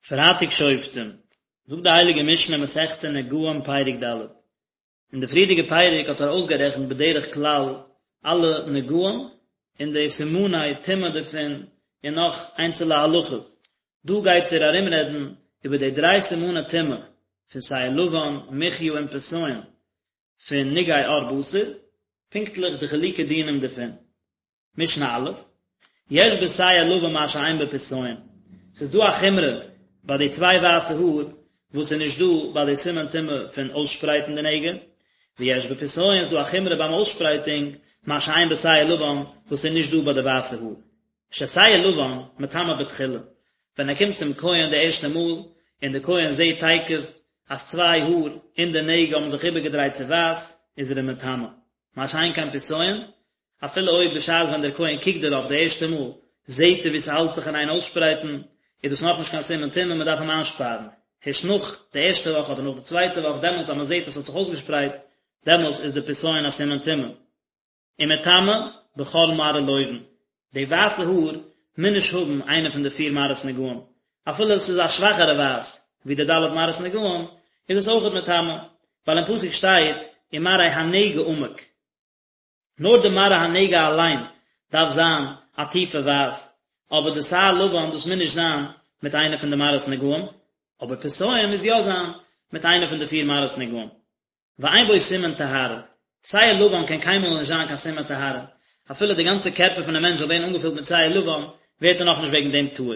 פרייטאג שופטים, זאגט די הייליגע משנה מסכת נגעים פרק ד', אין די פריערדיגע פרק האט ער אויסגערעכנט בדרך כלל אלע נגעים און די סימני טומאה דערפון און נאך איינצעלע הלכות, דא גייט ער ארומרעדן איבער די דריי סימני טומאה פון שער לבן, מחיה און פסיון פון נגעי עור בשר, פונקטליך די חילוקי דינים דערפון. משנה א', יש בשער לבן מה שאין בפסיון, ס'איז דא א חומרא ביי די צוויי ווייסע האר וואס איז נישט דא ביי די סימן טומאה פון אויסשפרייטן די נגע, ויש בפסיון איז דא א חומרא ביים אויסשפרייטונג מה שאין בשער לבן וואס איז נישט דא ביי די ווייסע האר. ששער לבן מטמא בתחילה, ווען ער קומט צום כהן די ערשטע מאל און די כהן זעט תיכף אז צוויי האר אין די נגע האבן זיך איבערגעדרייט צו ווייס, איז ער אים מטמא. מה שאין כן פסיון, אפילו אויב בשעת ווען דער כהן קוקט דערויף די ערשטע מאל, זעט ער ווי ס'האלט זיך אין איין אויסשפרייטן, איז דאס נאכנישט קיין סימן טומאה, מ'דארף אים איינשפארן. הערשט נאך די ערשטע וואך אדער נאך די צווייטע וואך, דעמאלטס אז מ'זעט אז ס'האט זיך אויסגעשפרייט, דעמאלטס איז די פסיון א סימן טומאה. ומטמא בכל מראה לובן, די ווייסע האר מוז נישט האבן איינע פון די פיר מראות נגעים, אפילו עס איז א שוואכערע ווייס ווי די ד' מראות נגעים, איז עס אויכעט מטמא, ווייל אין פסוק שטייט ומראה הנגע עמוק. נאר די מראה הנגע אליין דארף זיין א טיפע ווייס, אבער די שער לבן דאס מוז נישט זיין מיט איינע פון די מראות נגעים, אבער פסיון מוז יא זיין מיט איינע פון די פיר מראות נגעים. ואין בו סימן טהרה, שער לבן קען קיינמאל נישט זיין קיין סימן טהרה, אפילו די גאנצע קערפער פונעם מענטש זאל ווערן אנגעפילט מיט שער לבן, ווערט ער נאכנישט וועגן דעם טהור.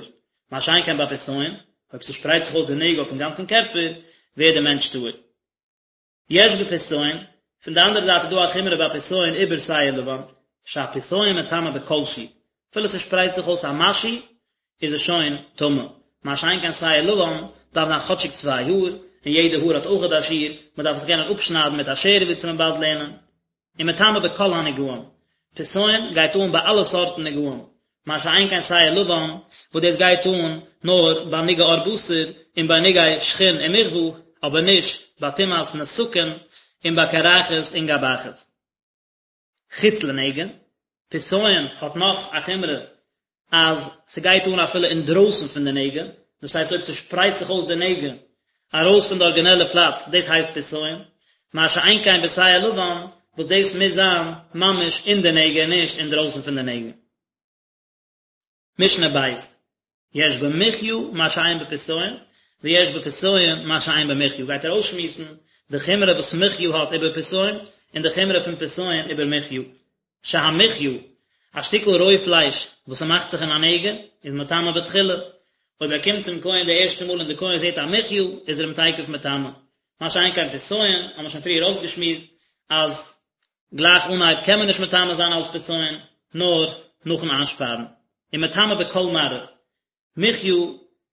מה שאין כן ביי פסיון, אויב ס'שפרייט זיך אויס די נגע אויפן גאנצן קערפער, ווערט דער מענטש טהור. יש בפסיון, פון די אנדערע זייט איז דא א חומרא ביי פסיון איבער שער לבן, שהפסיון מטמא בכל שהוא, אפילו ס'שפרייט זיך אויס א משהו איז עס שוין טמא, מה שאין כן שער לבן דארף זיין כאטשיג צוויי האר, און יעדע האר האט אויכעט א שיעור, מ'דארף עס קענען אפשניידן מיט א שער ווי צו מ'באלד לערנען. ומטמא בכל הנגעים, פסיון גייט אן ביי אלע סארטן נגעים, מה שאין כן שער לבן וואס דאס גייט אן נאר ביי נגעי עור בשר און ביי נגעי שחין און מכוה, אבער נישט ביי טומאת נתקים און ביי קרחת און גבחת. חוץ לנגע, פסיון האט נאך א חומרא אז ס'גייט אן אפילו אינדרויסן פון די נגע, דאס הייסט אויב ס'שפרייט זיך אויס די נגע ארויס פון די ארגינעלע פלאץ, דאס הייסט פסיון, מה שאין כן בשער לבן וואס דאס מוז זיין ממש אין די נגע און נישט אינדרויסן פון די נגע. משנה ב', יש במחיה מה שאין בפסיון, ויש בפסיון מה שאין במחיה, גייט ער אויסשמועסן די חומרא וואס מחיה האט איבער פסיון, און די חומרא פון פסיון איבער מחיה. שהמחיה, א שטיקל רוי פלייש וואס ס'מאכט זיך אין א נגע, איז מטמא בתחילה. אויב ער קומט צום כהן די ערשטע מאל און די כהן זעט א מחיה, איז ער אים תיכף מטמא. מה שאין כן פסיון, האבן מיר שוין פריער אויסגעשמועסט, אז גלייך אנהייב קען מען נישט מטמא זיין אלס פסיון, נאר נאכן איינשפארן. ומטמא בכל מראה. מחיה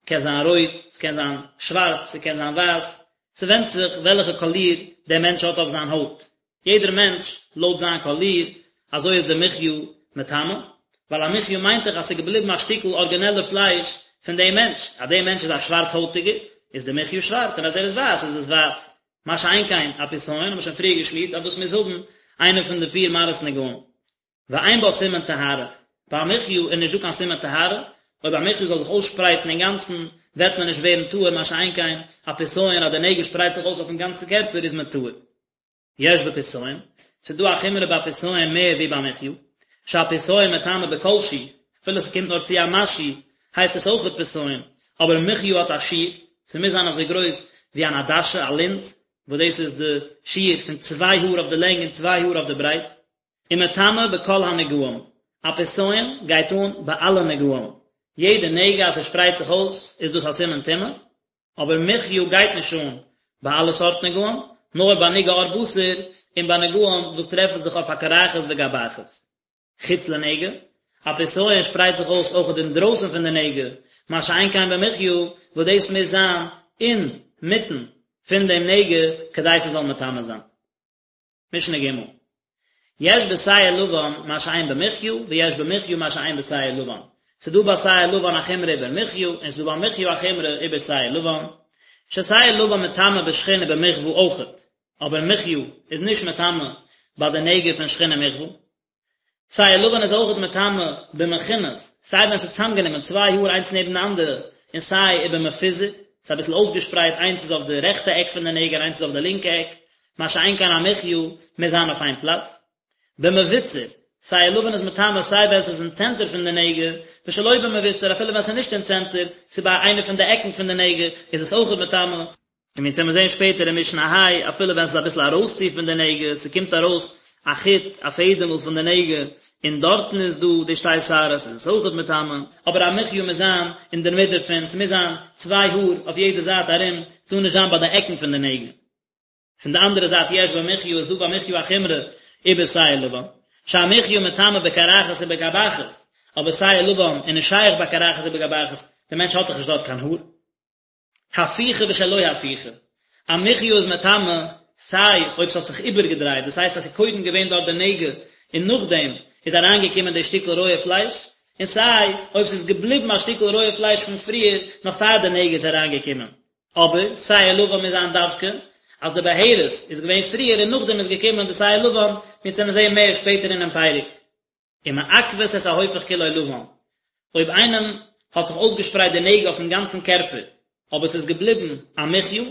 קען זיין רויט, ס'קען זיין שווארץ, ס'קען זיין ווייס, ס'ווענדט זיך וועלכע קאליר דער מענטש האט אויף זיין הויט. יעדער מענטש לויט זיין קאליר, אזוי איז די מחיה מטמא, ווייל א מחיה מיינט דאך אז ס'איז געבליבן א שטיקל ארגינעלע פלייש פון דעם מענטש, אז דער מענטש איז א שווארץ הויטיגער, איז די מחיה שווארץ, און אז ער איז ווייס איז עס ווייס. מה שאין כן א פסיון האבן מיר שוין פריער געשמועסט אז דאס מוז האבן איינע פון די פיר מראות נגעים. ואין בה סימן טהרה, ביי א מחיה איז נישט דא קיין סימן טהרה, אויב א מחיה זאל זיך אויסשפרייטן אינגאנצן וועט מען נישט ווערן טהור מה שאין כן א פסיון אז די נגע שפרייט זיך אויס אויפן גאנצן קערפער איז מען טהור. יש בפסיון, ס'איז דא א חומרא ביי פסיון מער ווי ביי מחיה, שהפסיון מטמא בכל שהוא, אפילו ס'קומט נאר צו א משהו הייסט עס אויכעט פסיון, אבער מחיה האט א שיעור, ס'מוז זיין אזוי גרויס ווי אן עדשה, א לינז, וואס דאס איז די שיעור פון צוויי האר אויף די לענג און צוויי האר אויף די ברייט. ומטמא בכל הנגעים, א פסיון גייט אן ביי אלע נגעים, יעדע נגע אז ס'שפרייט זיך אויס איז דאס א סימן טומאה, אבער מחיה גייט נישט אן ביי אלע סארט נגעים, נאר ביי נגעי עור בשר און ביי נגעים וואס טרעפן זיך אויף א קרחת וגבחת. חוץ לנגע, א פסיון שפרייט זיך אויס אויכעט אינדרויסן פון די נגע, מה שאין כן במחיה וואס דאס מוז זיין אינמיטן פון דעם נגע כדי ס'זאל מטמא זיין. משנה ג' יש בשער לבן מה שאין במחיה ויש במחיה מה שאין בשער לבן, ס'דא ביי שער לבן א חומרא איבער מחיה און ס'דא ביי מחיה א חומרא איבער שער לבן, ששער לבן מטמא בשחין ובמכוה אויכעט, אבער מחיה איז נישט מטמא ביי די נגע פון שחין און מכוה. שער לבן איז אויכעט מטמא במכונס, סיי ווען ס'איז צוזאמגענומען צוויי האר איינס נעבן די אנדערע. און סיי ובמפוזר, ס'איז אביסל אויסגעשפרייט איינס איז אויף די רעכטע עק פון די נגע און איינס איז אויף די לינקע עק, מה שאין כן א מחיה מוז זיין אויף איין פלאץ. במבוצר, שער לבן איז מטמא סיי ווען ס'איז אין צענטער פון די נגע, ושלא במבוצר אפילו ווען ס'איז נישט אין צענטער, ס'איז ביי איינע פון די עקן פון די נגע, איז עס אויכעט מטמא. און ווי אונז וועלן זען שפעטער אין משנה ה', אפילו ווען ס'איז אביסל ארויסצו פון די נגע, ס'קומט ארויס א חוט, א פעדעמל פון די נגע, און דארטן איז דא די שתי שערות, איז עס אויכעט מטמא. אבער א מחיה מוז זיין אינדערמיט דערפון, ס'מוז זיין צוויי האר אויף יעדע זייט ארום, ס'טאר נישט זיין ביי די עקן פון די נגע. פון די אנדערע זייט יש במחיה איז דא ביי מחיה א חומרא איבער שער לבן, שהמחיה מטמא בקרחת ובגבחת, אבער שער לבן איז נישט שייך בקרחת ובגבחת, דער מענטש האט דאך נישט דארט קיין האר. הפוכה ושלא הפוכה, א מחיה איז מטמא סיי אויב ס'האט זיך איבערגעדרייט, דאס הייסט אז ס'איז קודם געווען דארט די נגע און נאכדעם איז אריינגעקומען די שטיקל רויע פלייש, און סיי אויב ס'איז געבליבן א שטיקל רויע פלייש פון פריער נאך פאר די נגע איז אריינגעקומען. אבער שער לבן מוז זיין דווקא אז די בהרת איז געווען פריער און נאכדעם איז געקומען די שער לבן, מיר וועלן זעהן מער שפעטער אינעם פרק. ומעכבת את ההופך כולו לבן, אויב איינעם האט זיך אויסגעשפרייט די נגע אויפן גאנצן קערפער, אבער ס'איז געבליבן א מחיה,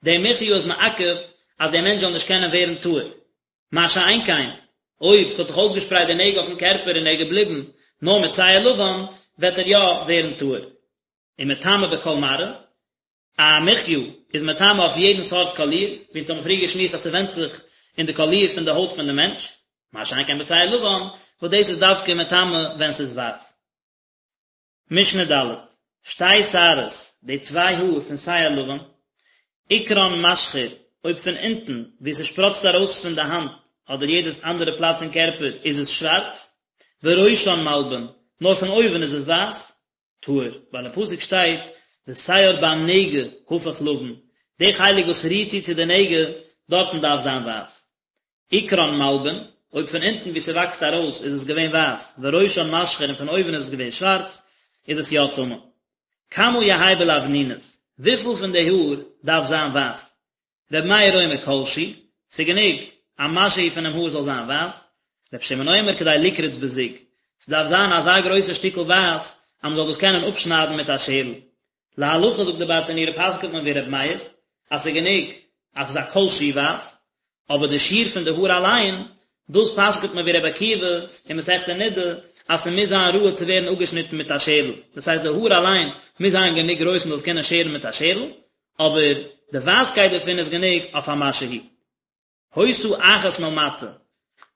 די מחיה איז מעכב אז דער מענטש זאל נישט קענען ווערן טהור. מה שאין כן, אויב ס'האט זיך אויסגעשפרייט די נגע אויפן קערפער און ער איז געבליבן נאר מיט שער לבן, וועט ער יא ווערן טהור. ומטמא בכל מראה, א מחיה איז מטמא אויף יעדן סארט קאליר, ווי אונז האבן פריער געשמועסט אז ס'ווענדט זיך אין די קאליר פון די הויט פון די מענטש, מה שאין כן בשער לבן, וואס דאס איז דווקא מטמא ווען ס'איז ווייס. משנה ד', שתי שערות, די צוויי האר פון שער לבן, עיקרן משחור, אויב פון אונטן, וואו ס'שפראצט ארויס פון די האנט, אדער יעדעס אנדערע פלאץ אין קערפער, איז עס שווארץ, וראשן מלבין, נאר פון אויבן איז עס ווייס, טהור, ווייל אין פסוק שטייט ושער בנגע הפוך לבן, די חלק וואס רירט צו צו די נגע, דארטן דארף זיין ווייס. עיקרן מלבין, אויב פון אונטן וואו ס'וואקסט ארויס איז עס געווען ווייס, וראשן משחור און פון אויבן איז עס געווען שווארץ, איז עס יא טמא. כמה יהא בלבנונית, וויפיל פון די האר דארף זיין ווייס? ר' מאיר אומר כל שהוא, ס'גענוג א משהו פונעם האר זאל זיין ווייס, ר' שמעון אומר כדי לקרוץ בזוג, ס'דארף זיין אזא גרויסע שטיקל ווייס אז מ'זאל דאס קענען אפשניידן מיט א שערל. להלכה זאגט די ברטנורא פסק'נט מען ווי ר' מאיר אז ס'גענוג אז ס'איז א כל שהוא ווייס, אבער די שיעור פון די האר אליין, דאס פסק'נט מען ווי ר' עקיבא אין מסכת נדה אז ס'מוז זיין ראוי צו ווערן אפגעשניטן מיט א שערל, דאס הייסט די האר אליין מוז זיין גענוג גרויס מ'זאל עס קענען שערן מיט א שערל, אבער די ווייסקייט דערפון איז גענוג אויף א משהו. היתה אחת מלמטה,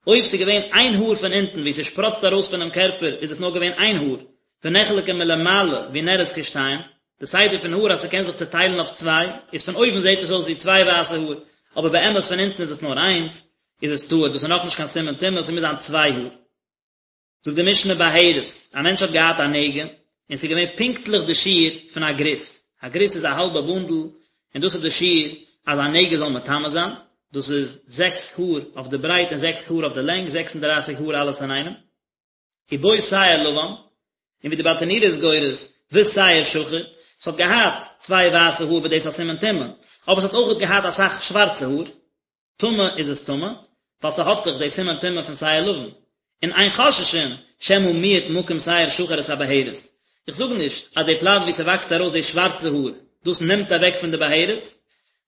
אויב ס'איז געווען איין האר פון אונטן וואו ס'שפראצט ארויס פונעם קערפער איז עס נאר געווען איין האר, ונחלקה מלמעלה ונראית כשתיים, די סדר פון האר אז ס'קען זיך צוטיילן אויף צוויי, איז פון אויבן זעט עס אויס ווי צוויי ווייסע האר, אבער באמת פון אונטן איז עס נאר איינס, איז עס טהור, דאס איז נאכנישט קיין סימן טומאה, ס'מוז זיין צוויי האר. זאגט די משנה בהרת, א מענטש האט געהאט א נגע, און ס'איז געווען פונקטליך די שיעור פון א גריס, א גריס איז א האלבע בונדל, און דאס איז די שיעור אז א נגע זאל מטמא זיין, דאס איז זעקס האר אויף די ברייט און זעקס האר אויף די לענג, זעקס און דרייסיג האר אלעס אינאיינעם. ובו שער לבן, און ווי די ברטנורא איז גורס, ושער שחור, ס'האט געהאט צוויי ווייסע האר וואס דאס איז א סימן טומאה, אבער ס'האט אויכעט געהאט אסאך שווארצע האר, טמא איז עס טמא, ווייל ס'האט דאך די סימן טומאה פון שער לבן, און אין חוששין שמא מיעט מקום שער שחור את הבהרת. איך זאג נישט אז די פלאץ וואו ס'וואקסט ארויס די שווארצע האר, דאס נעמט אוועק פון די בהרת,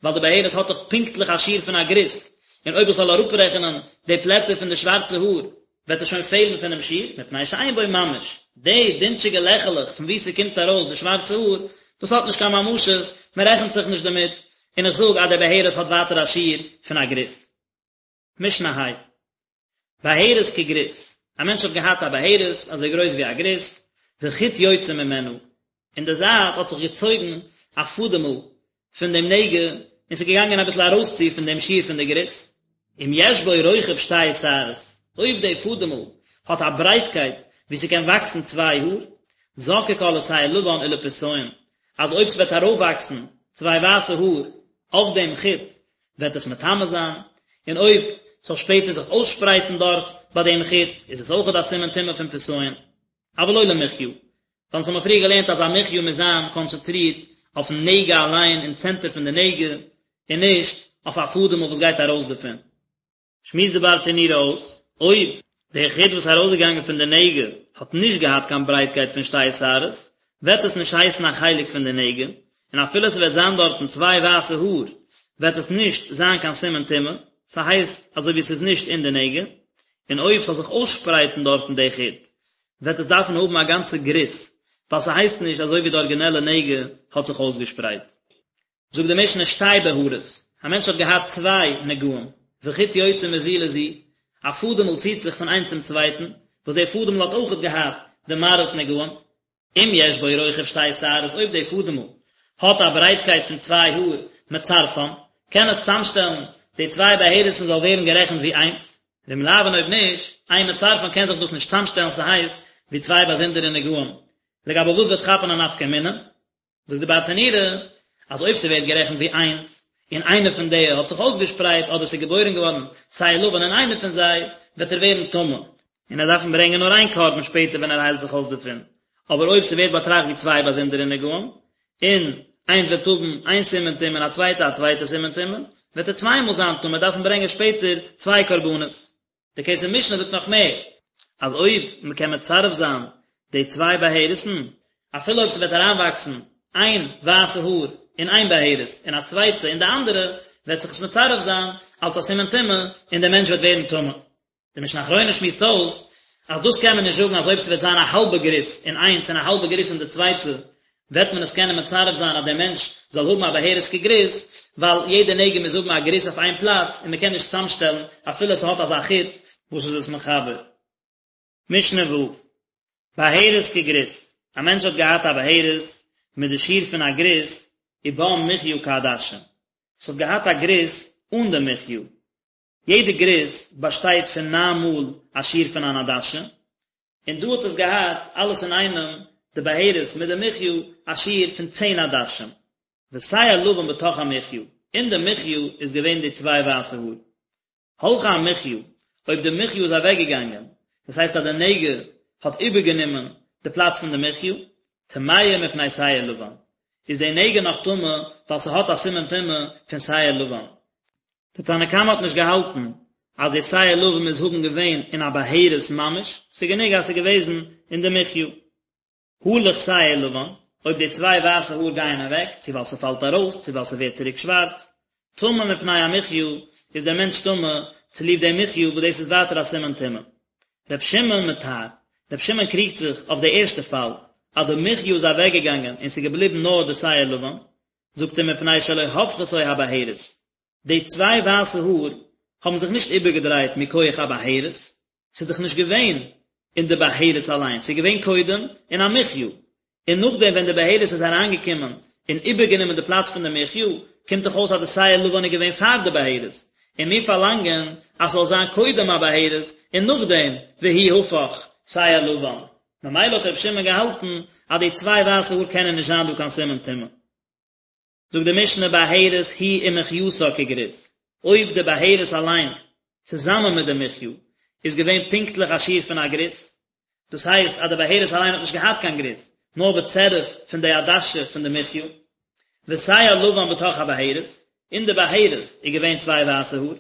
ווייל די בהרת האט דאך פונקטליך א שיעור פון א גריס, און אויב איך זאל אראפרעכענען די פלעצער פון די שווארצע האר, וועט עס שוין פעלן פונעם שיעור, מפני שאין בו ממש, די דינטשיגע לעכעלעך פון וואו ס'קומט ארויס די שווארצע האר, דאס האט נישט קיין ממשות, מען רעכנט זיך נישט דערמיט, און איך זאג אז די בהרת האט ווייטער א שיעור פון א גריס. משנה ה'. בהרת כגריס, א מענטש האט געהאט א בהרת אזוי גרויס ווי א גריס, וחוט יוצא ממנה, אין די זייט האט זיך געצויגן א פאדעמל פון דעם נגע, און ס'איז געגאנגען אביסל ארויסצו פון דעם שיעור פון די גריס. אם יש בו רוחב שתי שערות, אויב די פאדעמל האט א ברייטקייט וואו ס'קען וואקסן צוויי האר, זוקקה לשער לבן ולפסיון, אז אויב ס'וועט ארויפוואקסן צוויי ווייסע האר אויף דעם חוט וועט עס מטמא זיין, און אויב ס'זאל שפעטער זיך אויסשפרייטן דארט ביי דעם חוט איז עס אויכעט א סימן טומאה פון פסיון. אבל לא למחיה, ווייל אונז האבן פריער געלערנט אז א מחיה מוז זיין קאנצענטרירט אויפן נגע אליין אין צענטער פון די נגע, און נישט אויף א פאדעמל וואס גייט ארויס דערפון. שמועסט די ברטנורא אויס, אויב די חוט וואס איז ארויסגעגאנגען פון די נגע האט נישט געהאט קיין ברייטקייט פון שתי שערות, וועט עס נישט הייסן א חלק פון די נגע, און אפילו ס'וועט זיין דארטן צוויי ווייסע האר וועט עס נישט זיין קיין סימן טומאה, ס'הייסט אזוי ווי ס'איז נישט אין די נגע, און אויב ס'זאל זיך אויסשפרייטן דארטן די חוט וועט עס דארפן האבן א גאנצע גריס, ווייל ס'הייסט נישט אזוי ווי די ארגינעלע נגע האט זיך אויסגעשפרייט. זאגט די משנה שתי בהרות, א מענטש האט געהאט צוויי נגעים, וחוט יוצא מזו לזו, א פאדעמל ציט זיך פון איינס צום צווייטן, וואס דער פאדעמל האט אויכעט געהאט די מראות נגעים, אם יש בו רוחב שתי שערות אויב דער פאדעמל האט א ברייטקייט פון צוויי האר, מצרפן, קען עס צאמשטעלן די צוויי בהרת'ן זאל ווערן גערעכנט ווי איינס, ואם לאו און אויב נישט, אין מצרפן קען זיך דאס נישט צאמשטעלן ס'הייסט ווי צוויי באזונדערע נגעים, לגבי וואס וועט כאפן א נפקא מינה? זאגט די ברטנורא אז אויב ס'ווערט גערעכנט ווי איינס, און איינע פון די האט זיך אויסגעשפרייט אדער ס'איז געבוירן געווארן שער לבן אין איינע פון זיי, וועט ער ווערן טמא, און ער דארפן ברענגען נאר איין קרבן שפעטער ווען ער היילט זיך אויס דערפון, אבער אויב ס'ווערט באטראכט ווי צוויי באזונדערע נגעים, און איינס וועט האבן איין סימן טומאה און א צווייטע א צווייטע סימן טומאה, וועט ער צוויי מאל זיין טמא, דארפן ברענגען שפעטער צוויי קרבנות. די כסף משנה זאגט נאך מער, אז אויב מען קען מצרף זיין די צוויי בהרת'ן, אפילו אויב ס'וועט אריינוואקסן איין ווייסע האר אין איין בהרת און א צווייטע אין די אנדערע, וועט זיך עס מצרף זיין אלס א סימן טומאה און דער מענטש וועט ווערן טמא. די משנה אחרונה שמועסט אויס אז דאס קען מען נישט זאגן אז אויב ס'וועט זיין א האלבע גריס אין איינס און א האלבע גריס אין די צווייטע וועט מען עס קענען מצרף זיין אז דער מענטש זאל האבן א בהרת כגריס, ווייל יעדע נגע מוז האבן א גריס אויף איין פלאץ און מען קען נישט צוזאמשטעלן אפילו עס האט אזא חוט וואס איז עס מחבר. משנה ו', בהרת כגריס, א מענטש האט געהאט א בהרת מיט די שיעור פון א גריס, ובה מחיה כעדשה, עס האט געהאט א גריס אן די מחיה, יעדע גריס באשטייט פון ניין מאל א שיעור פון אן עדשה, און דא האט עס געהאט אלעס אינאיינעם די בהרת מיט די מחיה א שיעור פון צען עדשים, ושער לבן בתוך המחיה, אין די מחיה איז געווען די צוויי ווייסע האר. הלכה המחיה, אויב די מחיה איז אוועקגעגאנגען, דאס הייסט אז די נגע האט איבערגענומען די פלאץ פון די מחיה, טמאה מפני שער לבן, איז די נגע נאך טמא ווייל ס'האט א סימן טומאה פון שער לבן. די תנא קמא האט נישט געהאלטן אז די שער לבן מוז האבן געווען אין א בהרת ממש, ס'איז גענוג אז ס'איז געוועזן אין די מחיה. הלך שער לבן, אויב די צוויי ווייסע האר גייען אוועק, צו ווייל ס'פאלט ארויס, צו ווייל ס'ווערט צוריק שווארץ, טמא מפני המחיה, איז דער מענטש טמא צוליב די מחיה וואס דאס איז ווייטער א סימן טומאה. ר' שמעון מטהר, ר' שמעון קריגט זיך אויף די ערשטע פאל, אז די מחיה איז אוועקגעגאנגען און ס'איז געבליבן נאר די שער לבן, זאגט ער מפני שלא הפכתו הבהרת, די צוויי ווייסע האר האבן זיך נישט איבערגעדרייט מכח א בהרת, ס'איז דאך נישט געווען אין די בהרת אליין, ס'איז געווען קודם אין א מחיה, און נאכדעם ווען די בהרת איז אריינגעקומען און איבערגענומען די פלאץ פון די מחיה, קומט דאך אויס אז די שער לבן איז געווען פאר די בהרת, און מיר פארלאנגען אז ס'זאל זיין קודם א בהרת און נאכדעם והוא הפך שער לבן, ממילא האט רבי שמעון געהאלטן אז די צוויי ווייסע האר קענען נישט זיין דא קיין סימן טומאה. זאגט די משנה בהרת היא ומחייתה כגריס, אויב די בהרת אליין צוזאמען מיט די מחיה איז געווען פונקטליך א שיעור פון א גריס, דאס הייסט אז די בהרת אליין האט נישט געהאט קיין גריס, נאר בצירוף פון די עדשה פון די מחיה, ושער לבן בתוך הבהרת, אין די בהרת איז געווען צוויי ווייסע האר.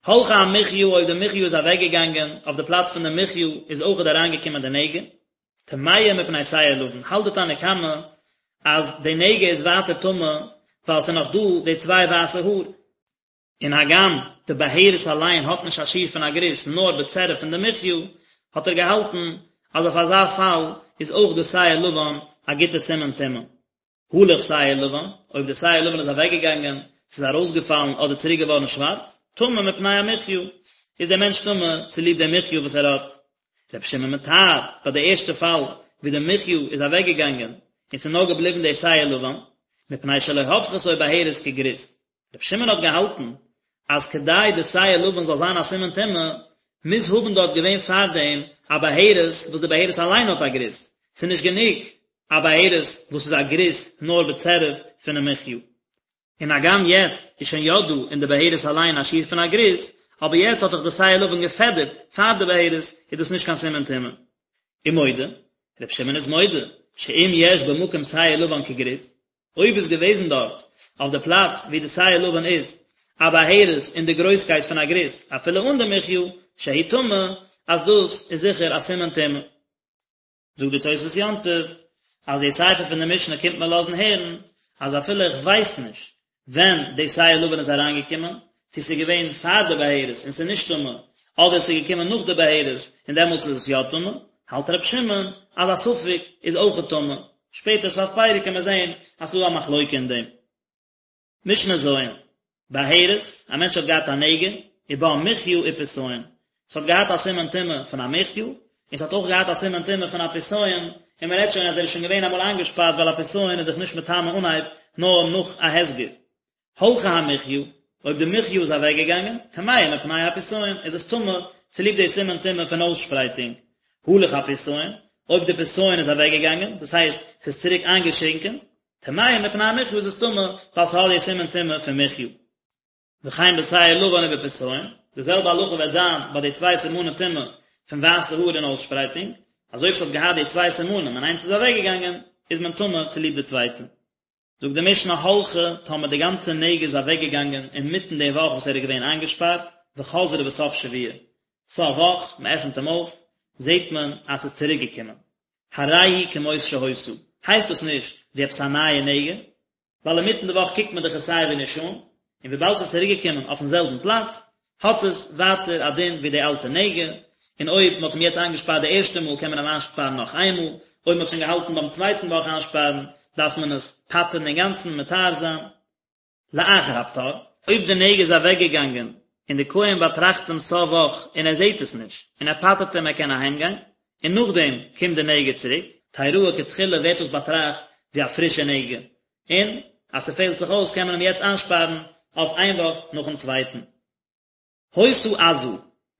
הלכה המחיה אויב די מחיה איז אוועקגעגאנגען, אויף די פלאץ פון די מחיה איז אויכעט אריינגעקומען די נגע, טמאה מפני שער לבן, האלט די תנא קמא אז די נגע איז ווייטער טמא ווייל ס'איז נאך דא די צוויי ווייסע האר. און הגם די בהרת אליין האט נישט א שיעור פון א גריס נאר בצירוף פון די מחיה, האט ער געהאלטן אז אויף אזא פאל איז אויך די שער לבן א גוטע סימן טומאה. הלך שער לבן, אויב די שער לבן איז אוועקגעגאנגען, ס'איז ארויסגעפאלן אדער צוריק געווארן שווארץ, טמא מפני המחיה, איז דער מענטש טמא צוליב די מחיה וואס ער האט. רבי שמעון מטהר, ביי די ערשטע פאל ווי די מחיה איז אוועקגעגאנגען און ס'איז נאר געבליבן די שער לבן, מפני שלא הפכתו בהרת כגריס. רבי שמעון האט געהאלטן אז כדי די שער לבן זאל זיין א סימן טומאה, מוז האבן דארט געווען פארדעם א בהרת וואס די בהרת אליין האט א גריס, ס'איז נישט גענוג א בהרת וואס איז א גריס נאר בצירוף פונעם מחיה. און הגם יעצט איז שוין יא דא אין די בהרת אליין א שיעור פון א גריס, אבער יעצט האט דאך די שער לבן געפעדערט פאר די בהרת, איז דאס נישט קיין סימן טומאה. ומודה, רבי שמעון איז מודה, שאם יש במקום שער לבן כגריס, אויב איז געוועזן דארט, אויף די פלאץ ווי די שער לבן איז, א בהרת אין די גרויסקייט פון א גריס, אפילו אן די מחיה, שהוא טמא, אז דאס איז זיכער א סימן טומאה. זאגט די תוספות יום טוב, אז די סיפא פון די משנה קומט מיר לאזן הערן אז אפילו איך ווייס נישט ווען די שער לבן איז אריינגעקומען, צו ס'איז געווען פאר די בהרת און ס'איז נישט טמא, אדער ס'איז געקומען נאך די בהרת און דעמאלטס איז עס יא טמא, האלט ר' שמעון אז א ספק איז אויכעט טמא, שפעטער סוף פרק קען מען זען אז ס'איז דא א מחלוקה אין דעם. משנה ז', בהרת, א מענטש האט געהאט א נגע, ובה מחיה ופסיון, ס'האט געהאט א סימן טומאה פון א מחיה, און ס'האט אויך געהאט א סימן טומאה פון א פסיון, און מ'רעדט שוין אז ער איז שוין געווען אמאל איינגעשפארט ווייל א פסיון איז דאך נישט מטמא אנהייב נאר נאך א הסגר. הלכה המחיה, אויב די מחיה איז אוועקגעגאנגען, טמאה מפני הפסיון, איז עס טמא צוליב די סימן טומאה פון אויסשפרייטונג. הלך הפסיון, אויב די פסיון איז אוועקגעגאנגען, דאס הייסט ס'איז צוריק איינגעשרינקען, טמאה מפני המחיה איז עס טמא ווייל ס'האט די סימן טומאה פון מחיה. וכן בשער לבן ובפסיון, די זעלבע הלכה וועט זיין ביי די צוויי סימני טומאה פון ווייסע האר און אויסשפרייטונג, אז אויב ס'האט געהאט די צוויי סימנים און איינס איז אוועקגעגאנגען, איז מען טמא צוליב די צווייטע. זאגט די משנה הלכה, טאמער די גאנצע נגע איז אוועקגעגאנגען אינמיטן די וואך וואס ער איז געווען איינגעשפארט, וחזרה בסוף שבוע, סוף וואך, מען עפנט אים אויף, זעט מען אז ס'איז צוריק געקומען. הרי היא כמות שהיתה, הייסט דאס נישט ווי עפעס א נייע נגע, ווייל אינמיטן די וואך קוקט מען דאך עס סיי ווי נישט אן, און וויבאלד ס'איז צוריק געקומען אויפן זעלבן פלאץ, האט עס ווייטער א דין ווי די אלטע נגע, און אויב מ'האט אים יעצט איינגעשפארט די ערשטע מאל קען מען אים איינשפארן נאך איין מאל, אויב מ'האט שוין געהאלטן ביים צווייטן וואך איינשפארן דארף מען עס פטר'ן אינגאנצן מטהר זיין. לאחר הפטור, אויב די נגע איז אוועקגעגאנגען און די כהן באטראכט אים סוף וואך און ער זעט עס נישט און ער פטר'ט אים ער קען אהיימגיין, און נאכדעם קומט די נגע צוריק, תראה כתחילה ווערט דאס באטראכט ווי א פרישע נגע, און אז ס'פעלט זיך אויס קען מען אים יעצט איינשפארן אויף איין וואך נאכן צווייטן. היתה עזה,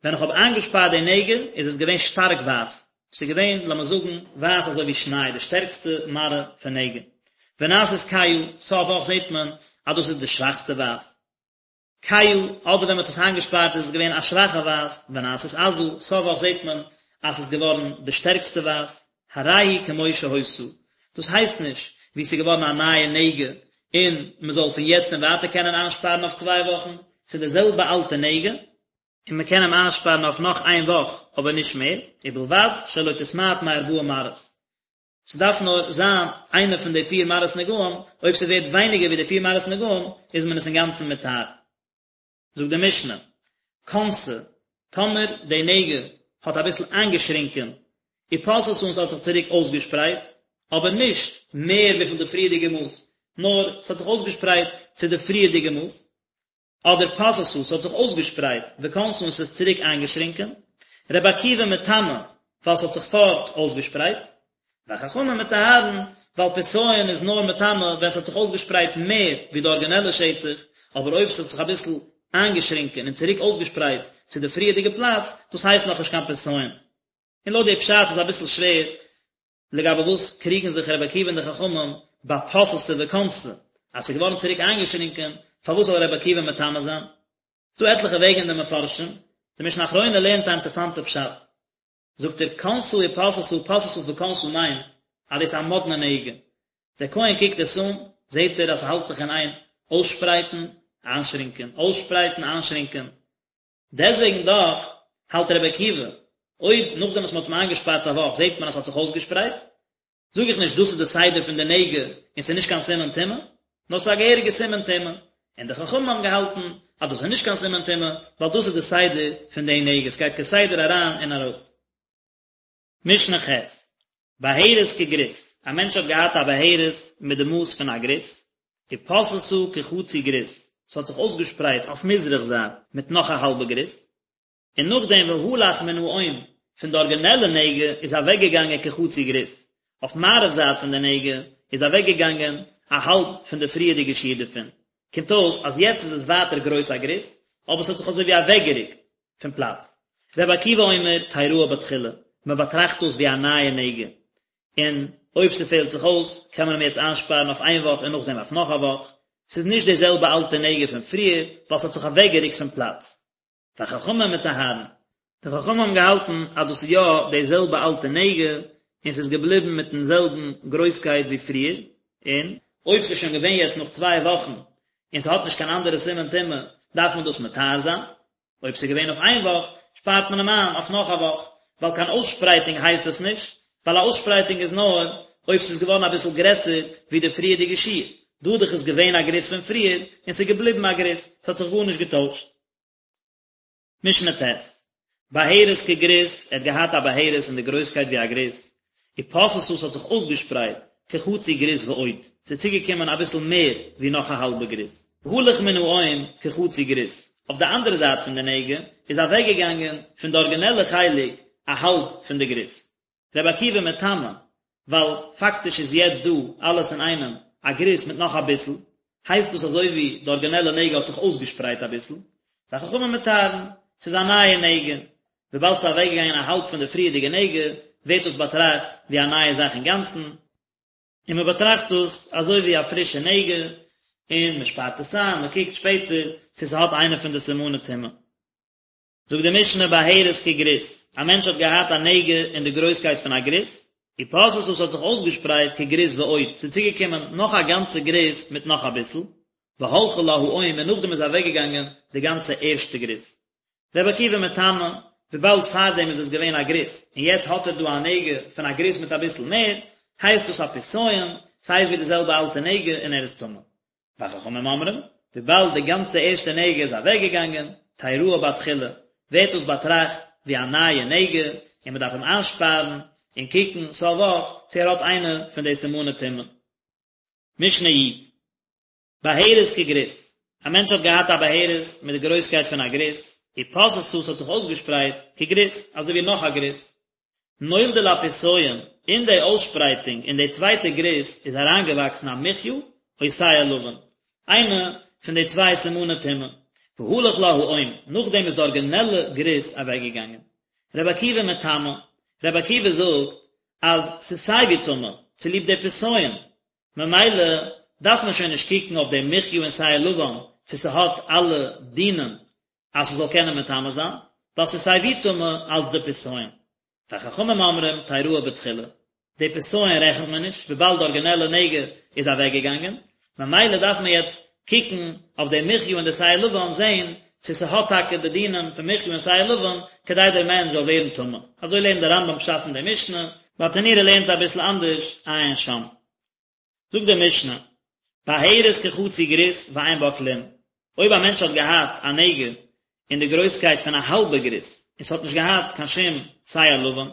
ווען איך האב איינגעשפארט די נגע איז עס געווען שטארק ווייס, ס'איז געווען לאמיר זאגן ווייס אזוי ווי שניי, די שטערקסטע מראה פון נגע. ונעשית כהה, סוף וואך זעט מען אז דאס איז די שוואכסטע ווייס. כהה, אדער ווען מ'האט עס איינגעשפארט איז עס געווען א שוואכע ווייס, ונעשית עזה, סוף וואך זעט מען אז ס'איז געווארן די שטערקסטע ווייס. הרי היא כמו שהיתה, דאס הייסט נישט ווי ס'איז געווארן א נייע נגע און מ'זאל פון יעצט און ווייטער קענען איינשפארן אויף צוויי וואכן, ס'איז די זעלבע אלטע נגע, און מ'קען אים איינשפארן אויף נאך איין וואך אבער נישט מער, ובלבד שלא תתמעט מארבעה מראות. ס'דארף נאר זיין איינע פון די פיר מראות נגעים, אויב ס'ווערט ווייניגער ווי די פיר מראות נגעים איז מען עס אינגאנצן מטהר. זאגט די משנה, כנסה, טאמער די נגע האט אביסל איינגעשרינקען, ופשתה און ס'האט זיך צוריק אויסגעשפרייט, אבער נישט מער וויפיל די פריערדיגע מאס, נאר ס'האט זיך אויסגעשפרייט צו די פריערדיגע מאס, אדער פשתה, ס'האט זיך אויסגעשפרייט, וכנסה און ס'איז צוריק איינגעשרינקען, רבי עקיבא מטמא, ווייל ס'האט זיך פארט אויסגעשפרייט, וחכמים מטהרין, ווייל פסיון איז נאר מטמא ווען ס'האט זיך אויסגעשפרייט מער ווי די ארגינעלע שטח, אבער אויב ס'האט זיך אביסל איינגעשרינקען און צוריק אויסגעשפרייט צו די פריערדיגע פלאץ, דאס הייסט נאכנישט קיין פסיון. און לויט די פשט איז אביסל שווער לגבי וואס קריגן זיך רבי עקיבא און די חכמים ביי פשתה וכנסה, אז ס'איז געווארן צוריק איינגעשרינקען, פארוואס זאל רבי עקיבא מטמא זיין? ס'דא עטליכע וועגן אין די מפרשים, די משנה אחרונה לערנט א אינטערסאנטע פשט, זאגט ער כנסה ופשתה פשתה וכנסה מיינט אז דאס איז א מאדנע נגע, דער כהן קוקט עס אן, זעט ער אז ס'האלט זיך אין איין אויסשפרייטן, איינשרינקען, אויסשפרייטן, איינשרינקען, דעסוועגן דאך האלט רבי עקיבא, אויב נאכדעם וואס מ'האט אים איינגעשפארט א וואך זעט מען אז ס'האט זיך אויסגעשפרייט, זאג איך נישט דאס איז די סדר פון די נגע און ס'איז נישט קיין סימן טומאה, נאר ס'איז א געהעריגע סימן טומאה, און די חכמים האבן געהאלטן אז דאס איז נישט קיין סימן טומאה, ווייל דאס איז די סדר פון די נגע, ס'גייט כסדר אריין און ארויס. משנה ח', בהרת כגריס, א מענטש האט געהאט א בהרת מיט די מאס פון א גריס, ופשתה כחצי גריס, ס'האט זיך אויסגעשפרייט אויף מזרח זייט מיט נאך א האלבע גריס, און נאכדעם והלך מן האום, פון די ארגינעלע נגע איז אוועקגעגאנגען כחצי גריס, אויף מערב זייט פון די נגע איז אוועקגעגאנגען א האלב פון די פריערדיגע שיעור דערפון, קומט אויס אז יעצט איז עס ווייטער גרויס א גריס, אבער ס'האט זיך אזוי ווי אוועקגערוקט פון פלאץ. רבי עקיבא אומר תראה בתחילה, מען באטראכט דאס ווי א נייע נגע, און אויב ס'פעלט זיך אויס קען מען אים יעצט איינשפארן אויף איין וואך און נאכדעם אויף נאך א וואך, ס'איז נישט די זעלבע אלטע נגע פון פריער ווייל ס'האט זיך אוועקגערוקט פון פלאץ. וחכמים מטהרין. די חכמים האבן געהאלטן אז דאס איז יא די זעלבע אלטע נגע, און ס'איז געבליבן מיטן זעלבן גרויסקייט ווי פריער, און אויב ס'איז שוין געווען יעצט נאך צוויי וואכן און ס'האט נישט קיין אנדערע סימן טומאה, דארף מען דאס מטהר זיין. אויב ס'איז געווען נאך איין וואך, שפארט מען אים איין אויף נאך א וואך, ווייל קיין אויסשפרייטונג הייסט עס נישט, ווייל א אויסשפרייטונג איז נאר. אויב ס'איז געווארן אביסל גרעסער ווי די פריערדיגע שיעור, דא דאך איז געווען א גריס פון פריער און ס'איז געבליבן א גריס, ס'האט זיך גארנישט געטוישט. משנה ט', בהרת כגריס, ער האט געהאט א בהרת אין די גרויסקייט ווי א גריס, ופשתה ס'האט זיך אויסגעשפרייט כחצי גריס ועוד, ס'איז צוגעקומען אביסל מער ווי נאך א האלבע גריס. והלך מן האום כחצי גריס, אויף די אנדערע זייט פון די נגע איז אוועקגעגאנגען פון די ארגינעלע חלק א האלב פון די גריס. רבי עקיבא מטמא, ווייל פאקטיש איז יעצט דא אלעס אינאיינעם א גריס מיט נאך אביסל, הייסט דאס אזוי ווי די ארגינעלע נגע האט זיך אויסגעשפרייט אביסל, וחכמים מטהרין, ס'איז א נייע נגע, וויבאלד ס'איז אוועקגעגאנגען א האלב פון די פריערדיגע נגע, ווערט דאס באטראכט ווי א נייע זאך אינגאנצן, און מען באטראכט דאס אזוי ווי א פרישע נגע, און מען שפארט עס איין, מען קוקט שפעטער צו ס'האט איינע פון די סימני טומאה. זאגט די משנה בהרת כגריס, א מענטש האט געהאט א נגע אין די גרויסקייט פון א גריס, ופשתה ס'האט זיך אויסגעשפרייט כגריס ועוד, ס'איז צוגעקומען נאך א גאנצע גריס מיט נאך אביסל, והלכה לה האום און נאכדעם איז אוועקגעגאנגען די גאנצע ערשטע גריס. רבי עקיבא מטמא, וויבאלד פארדעם איז עס געווען א גריס, און יעצט האט ער דא א נגע פון א גריס מיט אביסל מער, הייסט דאס א פסיון, ס'הייסט ווי די זעלבע אלטע נגע און ער איז טמא. וחכמים אומרים, וויבאלד די גאנצע ערשטע נגע איז אוועקגעגאנגען, תראה בתחילה, ווערט דאס באטראכט ווי א נייע נגע, און מען דארף אים איינשפארן און קוקן סוף וואך צו ער האט איינע פון די סימני טומאה. משנה י', בהרת כגריס, א מענטש האט געהאט א בהרת מיט די גרויסקייט פון א גריס, ופשתה ס'האט זיך אויסגעשפרייט כגריס, אזוי ווי נאך א גריס, נולדה לפסיון, אין די אויסשפרייטונג אין די צווייטע גריס איז אריינגעוואקסן א מחיה או שער לבן, איינע פון די צוויי סימני טומאה, והלך לה האום, נאכדעם איז די ארגינעלע גריס אוועקגעגאנגען. רבי עקיבא מטמא, רבי עקיבא זאגט אז ס'איז סייווי טמא, צוליב די פסיון, ממילא דארף מען שוין נישט קוקן אויף די מחיה און שער לבן צו ס'האט אלע דינים אז ס'זאל קענען מטמא זיין, ווייל ס'איז סיי ווי טמא אלץ די פסיון. וחכמים אומרים תראה בתחילה, די פסיון רעכנט מען נישט, וויבאלד די ארגינעלע נגע איז אוועקגעגאנגען, ממילא דארף מען יעצט קוקן אויף די מחיה און די שער לבן זען צו ס'האט טאקע די דינים פון מחיה און שער לבן כדי דער מענטש זאל ווערן טמא. אזוי לערנט דער רמב"ם פשט אין די משנה, ברטנורא לערנט אביסל אנדערש, עיין שם. זאגט די משנה, בהרת כחצי גריס ואין בה כלום, אויב א מענטש האט געהאט א נגע אין די גרויסקייט פון א האלבע גריס און ס'האט נישט געהאט קיין שום שער לבן,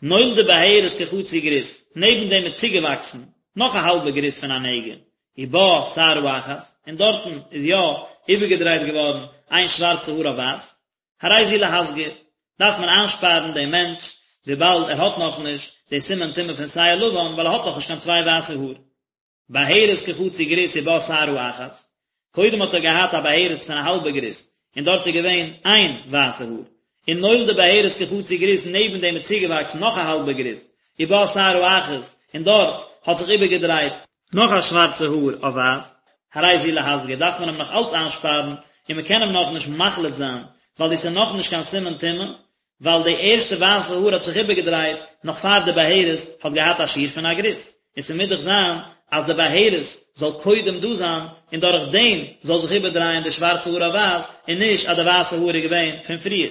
נולדה בהרת כחצי גריס, נעבן דעם איז צוגעוואקסן נאך א האלבע גריס פון א נגע, ובה שערה אחת, און דארטן איז יא איבערגעדרייט געווארן איין שווארצע האר אויף ווייס, הרי זו להסגיר, דארף מען איינשפארן דעם מענטש, וויבאלד ער האט נאכנישט די סימן טומאה פון שער לבן, ווייל ער האט נאכנישט קיין צוויי ווייסע האר. בהרת כחצי גריס ובה שערה אחת, קודם האט ער געהאט א בהרת פון א האלבע גריס, און דארט איז געווען איין ווייסע האר, און נולדה בהרת כחצי גריס נעבן דעם איז צוגעוואקסן נאך א האלבע גריס, ובה שערה אחת, און דארט האט זיך איבערגעדרייט נאך א שווארצע האר אויף ווייס, הרי זו להסגיר, דארף מען אים נאך אלץ איינשפארן, און מען קען אים נאכנישט מחליט זיין, ווייל דאס איז נאכנישט קיין סימן טומאה, ווייל די ערשטע ווייסע האר האט זיך איבערגעדרייט נאך פאר די בהרת האט געהאט א שיעור פון א גריס, און ס'מוז דאך זיין אז די בהרת זאל קודם דא זיין, און דורך דעם זאל זיך איבערדרייען די שווארצע האר אויף ווייס, און נישט אז די ווייסע האר איז געווען פון פריער.